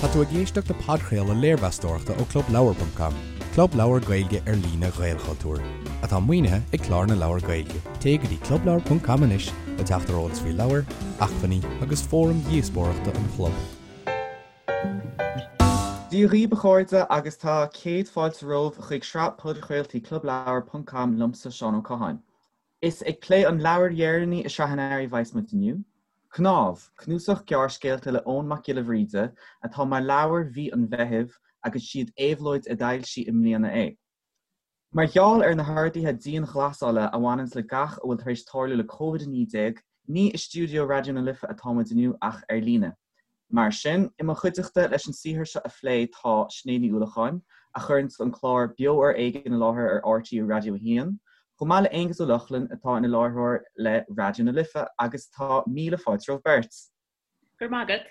Tá tú ag éisteacht le podchraoladh léirmheastóireachta ó ClubLeabhar.com, club leabhar Gaeilge ar líne Ghaelchultúir, atá maoinithe ag Clár na Leabhar Gaeilge. Téigh go dtí clubleabhar.com anois le teacht ar eolas faoi leabhair, acmhainní agus fóraim dhíospóireachta an chlub. Dia dhaoibh a chairde agus tá céad fáilte romhaibh chuig sraith podchraoltaí clubleabhar.com liomsa Seán Ó Catháin. Is ag plé an leabhair dheireanaí i sraith an earraigh a bheas muid inniu, Cnámh, cnuasach gearrscéalta le Eoin Mac Giolla Bhríde atá mar leabhar mhí an Mheithimh agus siad Éabhlóid a d'fhoilsigh i mbliana é. Mar gheall ar na horduithe dianghlasála a bhaineanns le gach a bhfuil tar éis tarlú le Covid-19, ní i stiúideo Raidió na Life atá muid inniu ach ar líne. Mar sin, i mo chuideachta leis an saothar seo a phlé tá Sinéad Ní Uallacháin, a chuireanns an clár Beo ar Éigean i láthair ar RTÉ Raidió 1, chomh maith le Aonghus Ó Lochlainn atá ina láithreoir le Raidió na Life agus tá míle fáilte romhaibh beirt. Go raibh maith agat.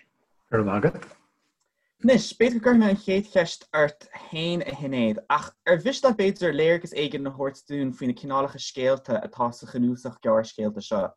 Go raibh maith agat. Anois, b'fhéidir go gcuirfidh mé an chéad cheist ort féin a Shinéad, ach ar mhiste leat b'fhéidir léargas éigin a thabhairt dúinn faoi na cineálacha scéalta atá sa chnuasach gearrscéalta seo?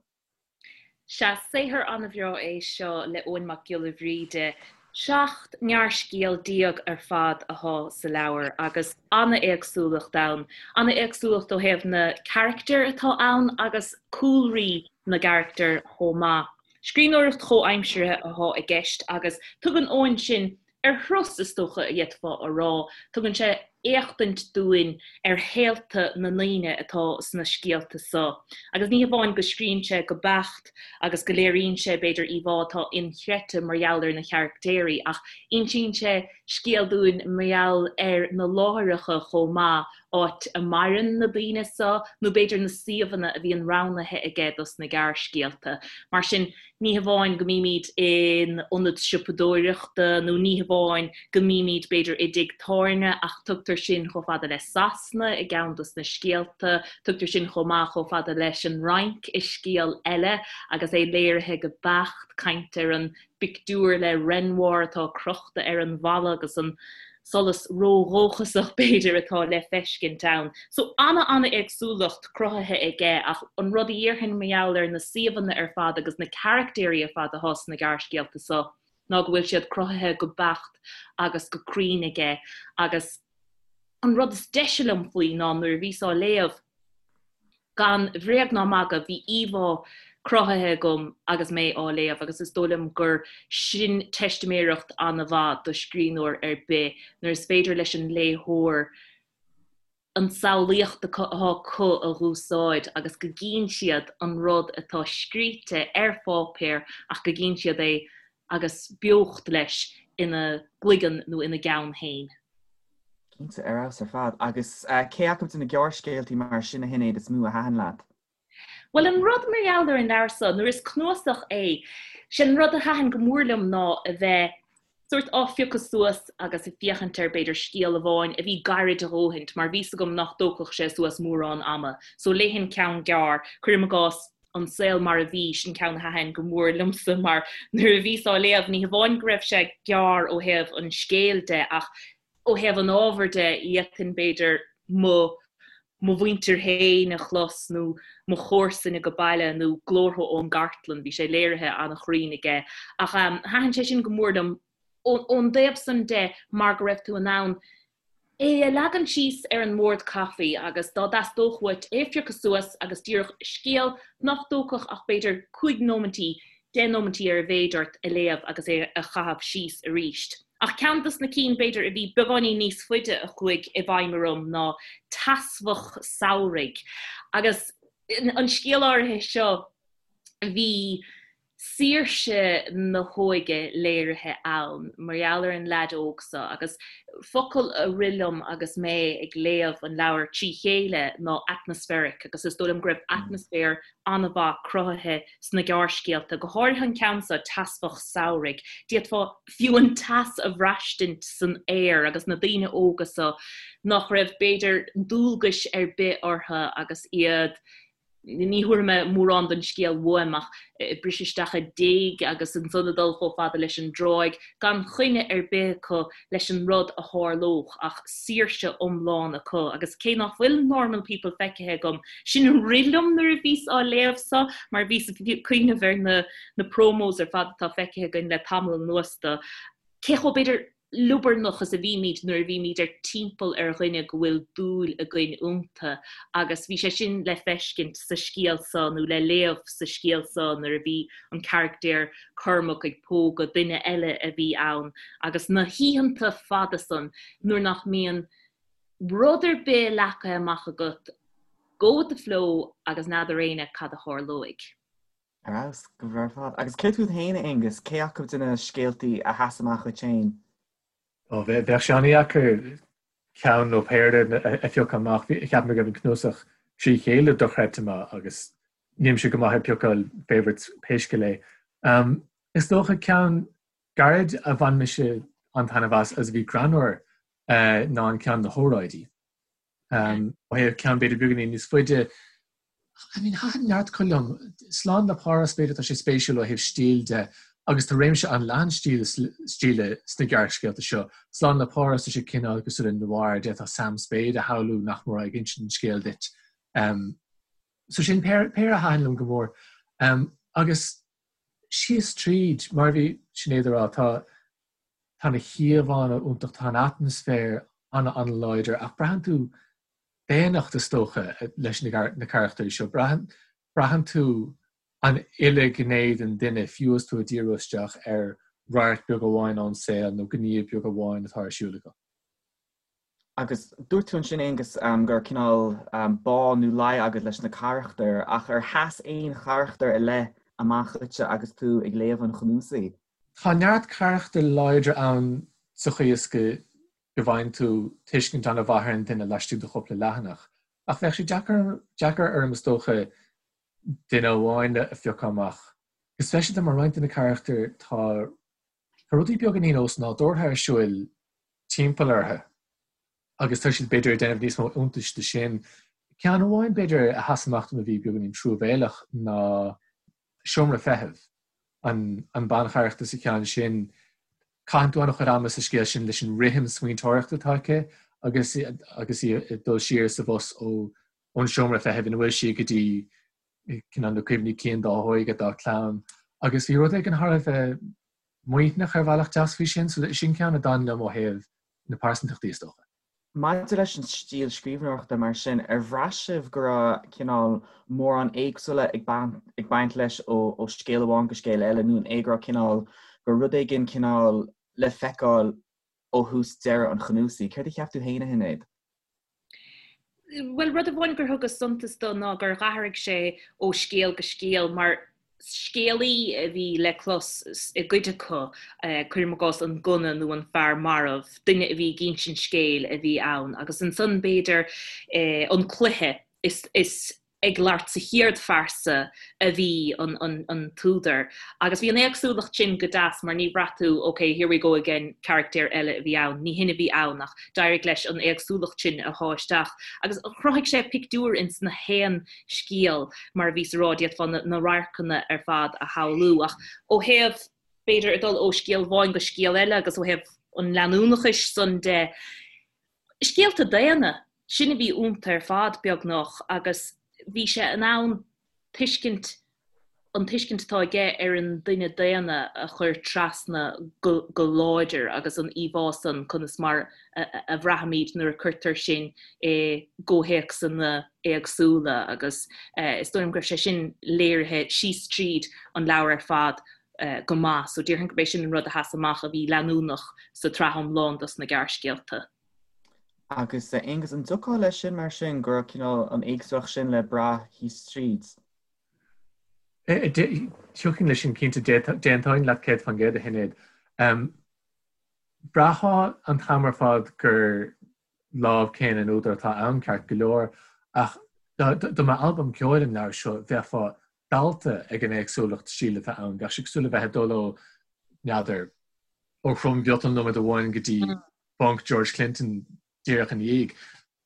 Sea, saothar an-bhreá é seo le Eoin Mac Giolla Bhríde. 17 ngearrscéal ar fad athá sa leabhar agus an-éagsúlacht ann. An-éagsúlacht ó thaobh na carachtair atá ann agus cúlraí na gcarachtar chomh maith. Scríbhneoireacht chomhaimseartha athá i gceist agus tugann Eoin sinn ar thuras, is dócha a d'fhéadfá a rá. Tugann sé éachtaint dúinn ar shaolta na ndaoine atá sna scéalta so. Agus ní hamháin go scríonn sé go beacht agus go léiríonn sé, b'fhéidir, íomhá atá inchreidte mar gheall ar na carachtéirí, ach insíonn sé scéal dúinn mar gheall ar na láithreacha chomh maith, áit a maireann na daoine so, nó b'fhéidir na suíomhanna a bhíonn roghnaithe aige dos na gearrscéalta. Mar sin, Ní hamháin go mbímid in ionad siopadóireachta nó ní hamháin go mbímid, b'fhéidir, i dtigh tábhairne ach tugtar sinn chomh fada le Sasana i gceann dos na scéalta, tugtar sinn chomh maith chomh fada leis an Fhrainc i scéal eile agus é léirithe go beacht, caint ar an bpictiúr le Renoir atá crochta ar an bhalla agus an solas ródhóchasach, b'fhéidir, atá le feiscint ann. So, ana-ana-éagsúlacht cruthaithe aige ach an rud a dhéarfainn mar gheall ar na suíomhanna ar fad agus na carachtéirí ar fad atá sna gearrscéalta so ná go bhfuil siad cruthaithe go beacht agus go cruinn aige agus an rud is deise liom faoi ná nuair a bhíos á léamh, Gan bhréag ná magadh, bhí íomhá cruthaithe agam agus mé á léamh agus is dóigh liom gur sin teistiméireacht an-mhaith do scríbhneoir ar bith, nuair is féidir leis an léitheoir an tsamhlaíocht atá acu a dh'úsáid agus go gcíonn siad an rud atá scríte ar pháipéar ach go gcíonn siad é agus beocht leis ina gcloigeann nó ina gceann féin. Cinnte, ar fheabhas ar fad. Agus cé acu de na gearrscéaltaí mar sin a Shinéad is mó a thaitin leat? Bhuel, an rud mar gheall ar an leabhar so, nuair is cnuasach é, sé an rud a thaitin go mór liom ná a bheith sórt á phiocadh suas agus ag féachaint ar, b'fhéidir, scéal amháin a bhí gairid a dhóthaint, mar bhí's agam nach dtógfadh sé suas mórán ama. So léifinn ceann gearr, cuirim i gcás, An Saol Mar a Bhí, sin ceann a thaitin go mór liomsa mar nuair a bhíos á léamh, ní hamháin go raibh sé gearr ó thaobh an scéil de ach ó thaobh an ábhair de, d'fhéadfainn b'fhéidir mo mo mhuintir féin a chlos nó mo chomharsain ag baile nó glórtha ón gcartlann, bhí sé léirithe an-chruinn aige. Ach thaitin sé sin go mór liom ón dtaobh san de mar go raibh tú in ann é a leagan síos ar an mbord caife agus dá dteastódh uait é a phiocadh suas agus díreach scéal nach dtógfadh ach b'fhéidir cúig nóimintí, deich nóimintí ar a mhéid ort a léamh agus é a chaitheamh síos arís. Ach ceann dos na cinn b'fhéidir a bhí beagáinín níos faide a chuaigh i bhfeidhm orm ná Teasbhach Samhraidh. Agus an scéal áirithe seo bhí saoirse na hóige léirithe ann mar gheall ar an leaid óg seo agus focal a rith liom agus mé ag léamh an leabhair trí chéile ná atmospheric agus is dóigh liom go raibh atmaisféar an-mhaith cruthaithe sna gearrscéalta, go háirithe an ceann seo, Teasbhach Samhraidh. D'fhéadfá fiú an teas a bhraistint san aer agus na daoine óga seo nach raibh b'fhéidir dualgais ar bith orthu agus iad Ní thabharfaidh mé mórán den scéal uaim ach ag briseadh isteach i dtigh agus ansan ag dul chomh fada leis an dtráigh, gan choinne ar bith acu leis an rud a tharlódh ach saoirse iomlán acu. Agus cé nach bhfuil Normal People feicthe agam, sin a rith liom nuair a bhíos á léamh so mar bhíos ag cuimhneamh ar na na promos ar fad atá feicthe againn le tamall anuas do. cé chomh, b'fhéidir, liobarnach is a bhímid nuair a bhímid ar timpeall ar dhuine go bhfuil dúil againn iontu agus bhí sé sin le feiscint sa scéal seo nó le léamh sa scéal seo nuair a bhí an carachtar Cormac ag pógadh duine eile a bhí ann agus na hoícheanta fada san nuair nach mbíonn rud ar bith leagtha amach agat, go with the flow agus n'fheadar éinne cad a tharlóidh. Ar fheabhas, go breá ar fad. Agus céard fút féin, a Aonghus, cé acu de na scéaltaí a sheas amach dhuit féin? Ó, bheadh sé an-dheacair ceann nó péire a phiocadh amach. Cheap mé go raibh an cnuasach trí chéile dochreidte maith agus nílimse go maith ag piocáil favourites pé scéal é. Is dócha ceann gairid a bhain mise an-taitneamh as agus a bhí greannmhar ná an ceann Na hÓráidí. Ó thaobh ceann b'fhéidir beagáinín níos faide, I mean, thaitin neart acu liom. Slán le Páras, b'fhéidir, tá sé spéisiúil ó thaobh stíl de agus tá réimse an-leathan stíle sna gearrscéalta seo. Slán le Páras, tá sé cineál cosúil le noir, d'fhéadfá Sam Spade a shamhlú nach mór ag insint an scéil duit. So sin péire a thaitin liom go mór. Agus síos tríd, mar a bhí Sinéad a rá, tá Tá na híomhánna iontach, tá an atmaisféar an-an-láidir ach braitheann tú daonnacht is dócha leis na carachtair seo. Braitheann tú an uile ghné den duine fiú is tú ag díriú isteach ar radharc beag amháin ón saol nó gníomh beag amháin atá ar siúl acu. Agus dúirt tú ansin, Aonghus, go raibh cineál bá nó luí agat leis na carachtair, ach ar sheas aon charachtar ar leith amach dhuitse agus tú ag léamh an chnuasaigh? Tá neart carachtair láidre ann sa chaoi is go bhfaigheann tú tuiscint an-mhaith ar an duine laistigh de chúpla leathanach, ach bheadh sé deacair orm is dócha duine amháin a phiocadh amach. Go speisialta mar roinnt de na carachtair tá rudaí beagáinín osnádúrtha ar siúl timpeall orthu agus tá siad b'fhéidir ag déanamh níos mó iontais de sin. Ceann amháin b'fhéidir a sheas amach dom a bhí beagáinín truamhéalach ná Seomra Feithimh, an an bancharachtar sa cheann sin. Caitheann tú an-chuid ama sa scéal sin leis an rithim smaointeoireachta atá aici agus agus í ag dul siar sa bhus ó ón seomra feithimh ina bhfuil sí go dtí cineál na cuimhní cinn dá hóige, dá clann. Agus bhí rud éigin thar a bheith maoithneach ar bhealach deas faoi sin, so sin ceann a d'fhan liom ó thaobh na pearsantachtaí is dócha. Maidir leis an stíl scríbhneoireachta mar sin, ar bhraith sibh go raibh cineál mórán éagsúla ag baint leis ó scéal amháin go scéal eile nó an é go raibh cineál, go raibh rud éigin cineál le feiceáil ó thús deireadh an chnuasaigh? Céard a cheap tú féin, a Shinéad? Bhuel, rud amháin gur thugas suntas do ná gur dh'athraigh sé ó scéal go scéal mar scéalaí a bhí le clos i gcuid acu, cuirim i gcás an gunna nó an fear marbh, duine a bhí ag insint scéil a bhí ann agus ansan b'fhéidir an cluiche is is ag labhairt sa chéad phearsa a bhí an t-údar. Agus bhí an éagsúlacht sin go deas mar ní bhraith tú ok, here we go again, carachtar eile a bhí ann. Ní hin a bhí ann ach d'éirigh leis an éagsúlacht sin a shá isteach. Agus chruthaigh sé pictiúr ins na haon scéal mar a bhíos a rá, d'fhéadfá na radharcanna ar fad a shamhlú. Ach ó thaobh, b'fhéidir, ag dul ó scéal amháin go scéal eile agus ó thaobh an leanúnachais san de, Scéalta daonna, sin a bhí iontu ar fad, beagnach, agus bhí sé in ann tuiscint, an tuiscint atá aige ar an duine daonna a chur trasna go láidir agus an íomhá san, conas mar a bhraithimid nuair a cuirtear sinn i gcomhthéacsanna éagsúla agus is dóigh liom go raibh sé sin léirithe síos tríd an leabhar ar fad go maith. So déarfainn gurb é sin an rud a sheas amach a bhí leanúnach sa tsraith iomlán dos na gearrscéalta. Agus Aonghus, an dtiocfá leis sin mar sin, go raibh cineál an éagsúlacht sin le brath thíos tríd? Thiocfainn leis sin cinnte, d'aontóinn leat 100% a Shinéad. Bhraithfeá an t-am ar fad gur lámh céanna an údair atá ann ceart go leor, ach dá mba albam ceoil an leabhar seo, bheifeá dallta ag an éagsúlacht stíle atá ann. Bheadh sé cosúil le bheith ag dul ó, n'fheadar, ó throm-mhiotal nóiméad amháin go dtí funk George Clinton díreach ina dhiaidh.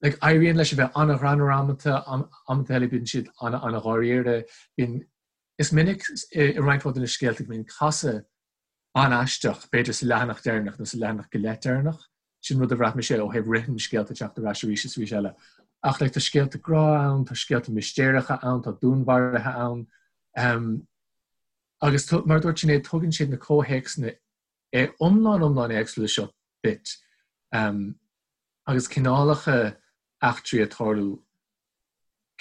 Like, éiríonn leis a bheith an-ghreannmhar amanta, amanta eile bíonn siad an-an-dháiríre. Bíonn, is minic i roinnt mhaith de na scéalta go mbíonn casadh an-aisteach, b'fhéidir sa leathanach deireanach nó sa leathanach go leith deireanach. Sin rud a bhraith mise ó thaobh rithim scéalta ag teacht ar ais arís is arís eile. Ach like, tá scéalta grá ann, tá scéalta mistéireacha ann, tá dúnmharuithe ann. Um, agus mar a dúirt Sinéad, tugann siad na comhthéacsanna. é iomlán iomlán éagsúil seo duit agus cineálacha eachtraí ag tarlú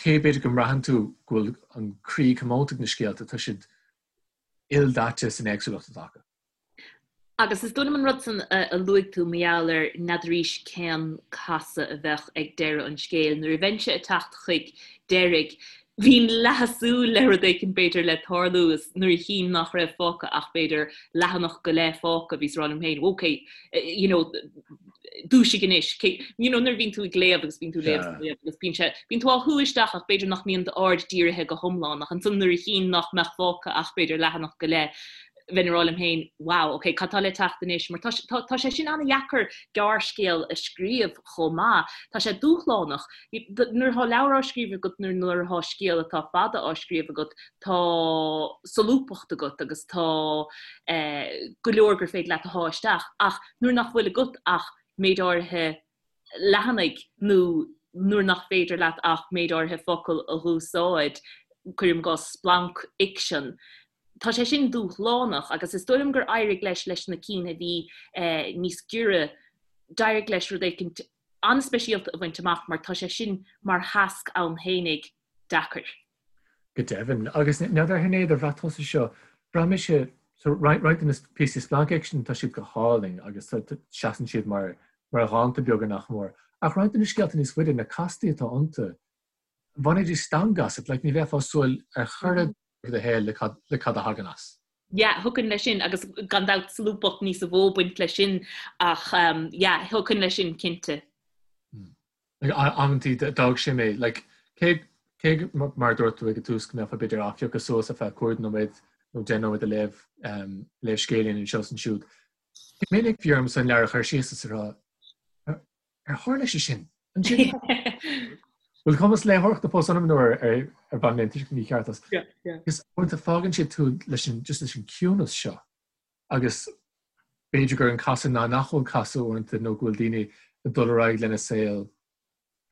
cé b'fhéidir go mbraitheann tú go bhfuil an croí comónta ag na scéalta, tá siad ildaite san éagsúlacht atá acu. Agus is dóigh liom an rud san a luaigh tú mar gheall ar n'fheadaraís cén casadh a bheadh ag deireadh an scéil. Nuair a bheinnse ag teacht chuig deiridh, bhínn leath ag súil le rud éicint b'fhéidir le tarlú is nuair a chínn nach raibh fágtha ach b'fhéidir leathanach go leith fágtha, bhíos ag rá liom féin, ok, you know, dúisigh anois. You know, nuair a bhíonn tú ag léamh agus bíonn tú ag léamh is ag léamh agus bíonn sé, bíonn tú á shú isteach ach b'fhéidir nach mbíonn d'aird dírithe go hiomlán ach ansan nuair a chínn nach mbeadh fágtha ach b'fhéidir leathanach go leith, bheinn ag rá liom féin, wow, ok, cad tá le teacht anois? Mar tá, tá, tá sé sin an-dheacair gearrscéal a scríobh chomh maith. Tá sé dúshlánach. Nuair atá leabhar á scríobh agat nó nuair atá scéal atá fada á scríobh agat, tá solúbthacht agat agus tá eh, go leor gur féidir leat a shá isteach. Ach nuair nach bhfuil agat ach méid áirithe leathanaigh nó nuair nach féidir leat ach méid áirithe focal a dh'úsáid, cuirim i gcás splancfhicsean, Tá sé sin dúshlánach agus is dóigh liom gur éirigh leis leis na cinn a bhí níos giorra, d'éirigh leis rud éicint an-speisialta a bhaint amach mar tá sé sin mar thasc ann fhéinig deacair. Go deimhin. Agus n'fheadar a Shinéad ar bhraith tusa seo, bhraith mise, so roinnt de na píosaí splancfhicsin tá siad go hálainn agus seasann siad mar mar dhánta beaga nach mór. Ach roinnt de na scéalta níos faide, na castaí atá iontu, bhainfidís stangadh asat, like ní bheifeá ag súil ar chor ar bith i do shaol le cad le cad a thagann as. Yeah, thiocfainn leis sin agus gan dabht solúbthacht níosa mhó ag baint leis sin ach um, yeah, thiocfainn leis sin cinnte. Mm. Like, amantaí d'fhág sé mé, like, cé cé mar dúirt tú ag an tús go mbeifeá b'fhéidir á phiocadh suas ar feadh 5 nóiméad nó 10 nóiméad a léamh um, léamh scéilín anseo is ansiúd. Go minic bhí ormsa an leabhar a chur síos is a rá Ar tharla sé sin? Ansin? Bhfuil cumas léitheoireachta fós ionam nó ar ar bhain mé an tuiscint mícheart as? Is uaireanta fágann sé tú leis an just leis an ciúnas seo agus b'fhéidir gur an casadh ná nach bhfuil casadh uaireanta nó go bhfuil daoine ag dul ar aghaidh lena saol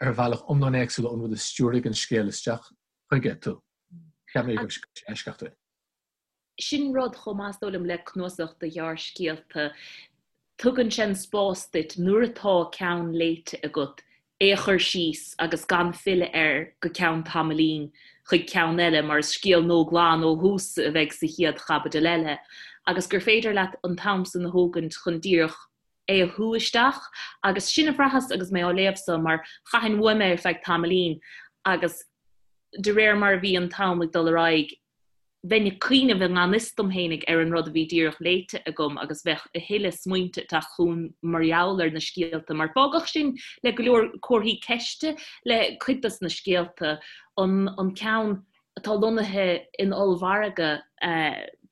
ar bhealach iomlán éagsúil ón rud a stiúraigh an scéal isteach chuige tú. Cheap mé go raibh sé eisceachtúil. Sin rud chomh maith is dóigh liom le cnuasach de ghearrscéalta, tugann sé an spás duit nuair atá ceann léite agat é a chur síos agus gan filleadh air go ceann tamaillín chuig ceann eile mar is scéal nua glan ó thús a bheidh sa chéad chaibidil eile agus gur féidir leat an t-am san a thógaint chun díreach é a shú isteach agus sin a bhraitheas agus mé á léamh so mar chaithfinn uaim é ar feadh tamaillín agus de réir mar a bhí an t-am ag dul ar aghaidh bheinn ag cuimhneamh i ngan fhios dom fhéinig ar an rud a bhí díreach léite agam agus bheadh a thuilleadh smaointe ag teacht chugam mar gheall ar na scéalta, mar fágadh sinn le go leor comharthaí ceiste le cuid dos na scéalta. An an ceann atá lonnaithe in ollmhargadh,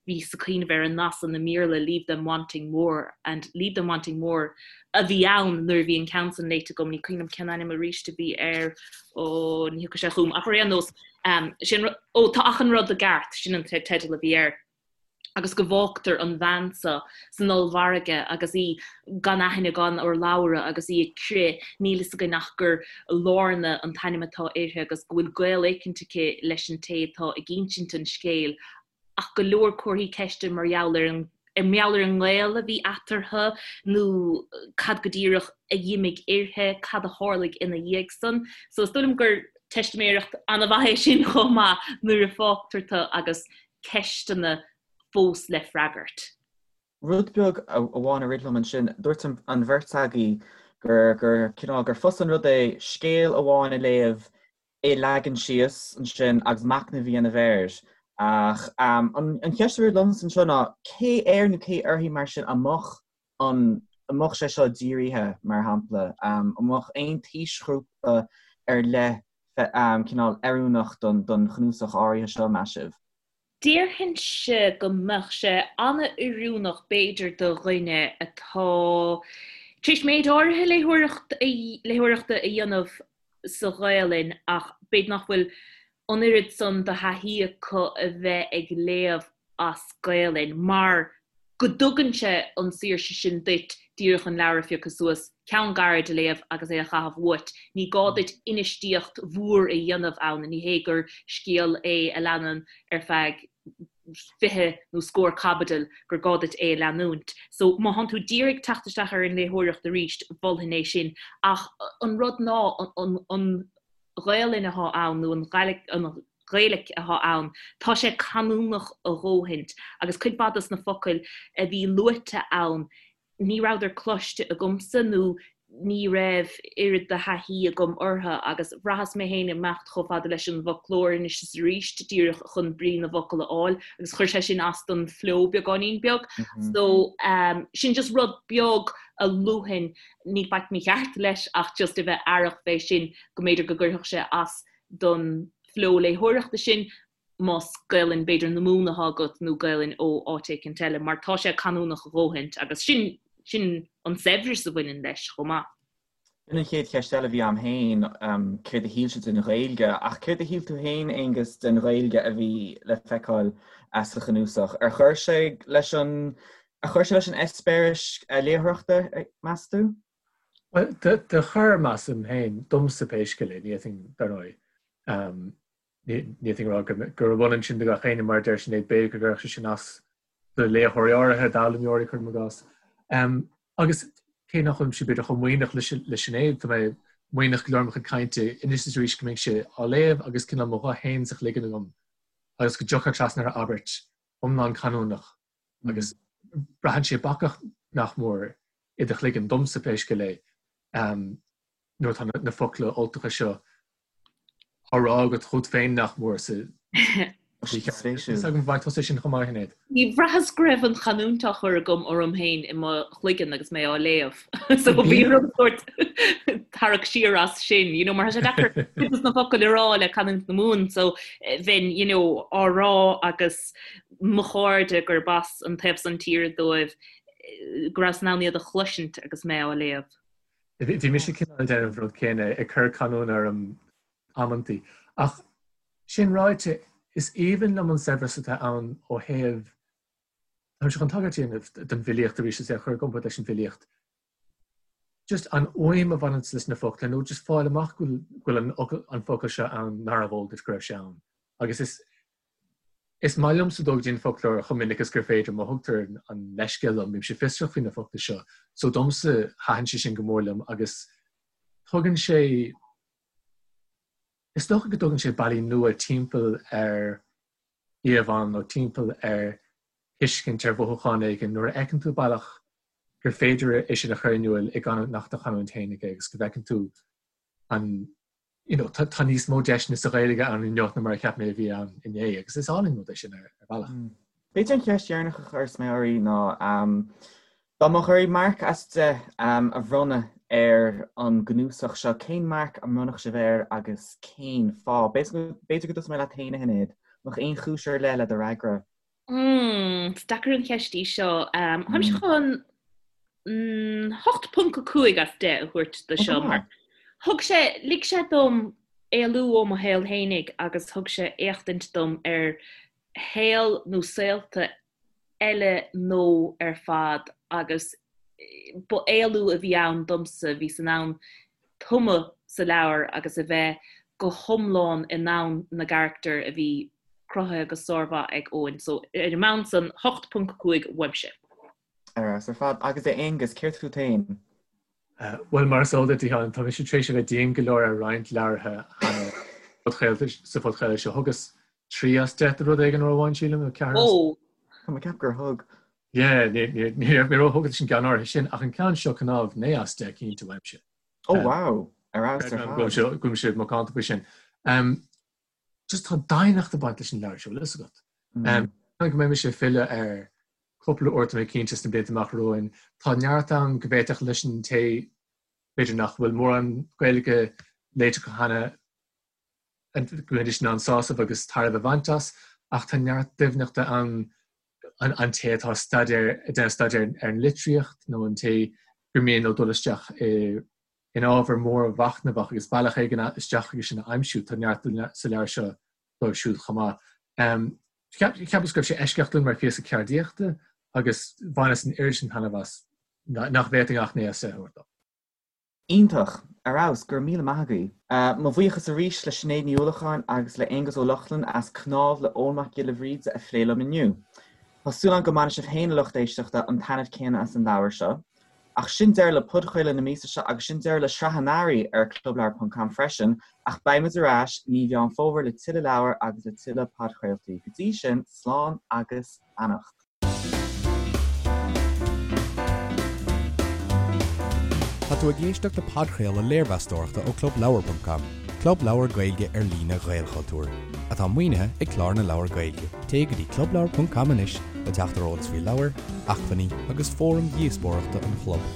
bhíos ag cuimhneamh ar an nath san i mBéarla 'leave them wanting more' and 'leave them wanting more' a bhí ann nuair a bhí an ceann san léite agam, ní cuimhin liom cén ainm arís a bhí air, ó ní thiocfaidh sé chugam ach ar aon nós, Sin rud, ó tá achan rud i gceart, sin an teideal a bhí air. Agus go bhfágtar an bhean seo san ollmhargadh agus í gan aithne gan urlabhra agus í ag crith, níl fhios againn ach gur Lorna an t-ainm atá uirthi agus go bhfuil gaol éicint aici leis an té atá ag insint an scéil ach go leor comharthaí ceiste mar gheall ar an mar gheall ar an ngaol a bhí eatarthu nó cad go díreach a d'imigh uirthi, cad a tharlaigh ina dhiaidh san. So is dóigh liom gur teistiméireacht an-mhaith é sin chomh maith nuair a fágtar tú agus ceisteanna fós le freagairt. Rud beag amháin a rith liom ansin, dúirt an bheirt agaibh gur gur cineál gur fusa an rud é scéal amháin a léamh é a leagan síos ansin agus machnamh a dhéanamh air. Ach an cheist a rith liomsa anseo ná cé air nó cé uirthi mar sin a mbeadh an a mbeadh sé seo dírithe, mar shampla? An mbeadh aon t-aoisghrúpa ar leith cineál oiriúnach don chnuasach áirithe seo, meas sibh? Déarfainnse go mbeadh sé an-oiriúnach b'fhéidir do dhuine atá tar éis méid áirithe léitheoireachta a dhéanamh sa Ghaelainn ach b'fhéidir nach bhfuil an oiread san de thaithí acu a bheith ag léamh as Gaelainn mar go dtugann sé an saoirse sin duit díreach an leabhar a phiocadh suas, ceann gairid a léamh agus é a chaitheamh uait. Ní gá duit infheistíocht mhór a dhéanamh ann, ní hé gur scéal é a leanann ar feadh. 20 nó scór caibidil gur gá duit é a leanúint. So má thánn tú díreach ag teacht isteach ar an léitheoireacht arís, mholfainn é sin. Ach an rud ná an Ghaelainn athá ann nó an Ghaeilic athá ann, tá sé canúnach a dhóthaint agus cuid mhaith dos na focail a bhí luaite ann, ní rabhadar cloiste agamsa nó ní raibh oiread de thaithí agam orthu agus bhraitheas mé féin ag imeacht chomh fada leis an bhfoclóir anois is arís díreach chun brí na bhfocal a fháil agus chuir sé sin as don flow beagáinín beag. So sin just rud beag a luafainn, níl faic mícheart leis ach just a bheith aireach fé sin go mb'fhéidir go gcuirfeadh sé as don flow léitheoireachta sin más Gaelainn b'fhéidir na Mumhan atá agat nó Gaelainn ó áit éicint eile, mar tá sé canúnach a dhóthaint agus sin, sin an saibhreas a bhaineann leis chomh maith. Sin an chéad cheist eile a bhí a'm féin, céard a shíl sibh den Ghaeilge? Ach céard a shíl tú féin, Aonghus, den Ghaeilge a bhí le feiceáil sa chnuasach? Ar chuir sé leis an, ar chuir sé leis an eispéireas léitheoireachta, meas tú? Bhuel, do chuir, measaim féin, domsa pé scéal é, ní fhéadfainn, dar ndóigh, Ní fhéadfainn a rá gurb ionann sin do gach éinne, mar a deir Sinéad, b'fhéidir go gcuirfeadh sé sin as do léitheoirí áirithe, d'fhoghlaimeoirí, cuirim i gcás. Agus cé nach bhfuilimse b'fhéidir chomh maoithneach le Sinéad, tá mé maoithneach go leor i mo chuid cainte anois is arís go mbeinnse á léamh agus cineál mo ghuth féin sa chloigeann agam agus go dtiocfá trasna ar abairt iomlán canúnach agus braitheann sé bacach nach mór i do chloigeann, domsa pé scéal é. nuair atá na focla Ultacha seo á rá agat chugat féin nach mór sa Is agam bhfaigh tusa sin chomh maith, Sinéad. Ní bhraitheas go raibh an chanúint á chur agam orm féin i mo chloigeann agus mé á léamh. So bhí orm sórt tarrac siar as sin, you know, mar tá sé deacair cuid de na focail a rá le canúint na Mumhan, so bheinn, you know, á rá agus mo chairde gurb as an taobh san tíre dóibh go rabhas in ann iad a chloisint agus mé á léamh. Bhí mise cineál ag déanamh an rud céanna, ag cur canúna orm amantaí. Ach sin ráite, is aoibhinn liom an saibhreas atá ann ó thaobh, táimse chun tagairt a dhéanamh don bhfilíocht arís is é a chur i gcomparáid leis an bhfilíocht. Just an fhuaim a bhaineanns leis na focla nó just fáil amach go bhfuil an focal seo ann nárbh eol duit go raibh sé ann. Agus is Is maith liomsa dul go dtí an foclóir chomh minic is gur féidir, má thugtar an leithscéal liom, bímse fiosrach faoi na focla seo. So domsa, thaitin sé sin go mór liom agus tugann sé, is dócha go dtugann sé bealaí nua timpeall ar íomhánna nó timpeall ar thuiscint ar mhothúchán éigin nuair a fheiceann tú bealach gur féidir é sin a chur in iúl i gcanúint nach do chanúint féinig é agus go bhfeiceann tú an you know, tá, tá níos mó deiseanna sa Ghaeilge ann inniu ná mar a cheap mé a bhí ann inné agus is álainn rud é sin ar, ar bhealach. Mm. B'fhéidir an cheist dheireanach a chuirfeas mé oraibh ná um, dá mbeadh oraibh marc as 10 um, a bhronnadh ar an gcnuasach seo, cén marc a mbronnfadh sibh air agus cén fáth? B'fhéidir go dtosóidh mé leat féin, a Shinéad. Mbeadh aon chúis ar leith le do fhreagra? Mm, is deacair an cheist í seo. Um, Táimse mm. chun mm, 8.5 as 10 a thabhairt do seo mar thug sé lig sé dom éalú ó mo shaol fhéinig agus thug sé éachtaint dom ar shaol nó saolta eile nó ar fad agus ba éalú a bhí ann domsa, bhíos in ann tumadh sa leabhar agus a bheith go hiomlán i ndomhan na gcarachtar a bhí cruthaithe go sármhaith ag Eoin. So ar an mbonn san, 8.5 uaimse. Ar fheabhas ar fad. Agus a Aonghus, céard fút féin? Bhuel, mar is eol duit, a Sheáin, tá mise tar éis a bheith dian go leor ar roinnt leabhartha cheana sa phodchraoladh seo. Thugas 3 as 10 do rud éigin uair amháin, sílim, nó 4 as. Ó! Tá mé ag ceapadh gur thug. Yeah, ní raibh mé róthógtha leis an gceann áirithe sin, ach an ceann seo, cnámh, 9 as 10 cinnte uaimse. Ó, wow! Ar fheabhas ar fad. Go bhfuil sé macánta faoi sin. Just tá doimhneacht ag baint leis an leabhar seo, bhfuil fhios agat. Go mbeidh mise ag filleadh air cúpla uair tá mé cinnte sna blianta amach romhainn. Tá neart ann go bhféadfadh leis an té b'fhéidir nach bhfuil mórán Gaeilge léite acu cheana go mbeidís in ann sásamh agus tairbhe a bhaint as, ach tá neart doimhneachta ann an té atá ag staidéar ag déanamh staidéir ar an litríocht nó an té gur mian leo dul isteach i in ábhar mór mhachnamhach agus bealach éigin isteach chuige sin a aimsiú. Tá neart sa leabhar seo dóibh siúd chomh maith. Cheapas go raibh sé eisceachtúil mar phíosa ceardaíochta agus bhaineas an oiread sin taitneamh as nach bhféadfainn ach 9 as 10 a thabhairt dó. Iontach! Ar fheabhas! Go raibh míle maith agaibh. Mo bhuíochas arís le Sinéad Ní Uallacháin agus le Aonghus Ó Lochlainn as Cnámh le Eoin Mac Giolla Bhríde a phlé liom inniu. Tá súil agam go mbainfidh sibh féin, a lucht éisteachta, an taitneamh céanna as an leabhar seo. Ach sin deireadh le podchraoladh na míosa seo agus sin deireadh le sraith an earraigh ar Clubleabhar ponc com freisin ach beidh muid ar ais i mí Mheán Fómhair le tuilleadh leabhar agus le tuilleadh podchraoltaí. Go dtí sin, slán agus beannacht. Tá tú ag éisteacht le podchraoladh léirmheastóireachta ó Clubleabhar ponc com, club leabhar Gaeilge ar líne Ghaelchultúir, atá maoinithe ag Clár na Leabhar Gaeilge. Téigh go dtí clubleabhar ponc com anois le teacht ar eolas faoi leabhair, acmhainní agus fóraim dhíospóireachta an chlub.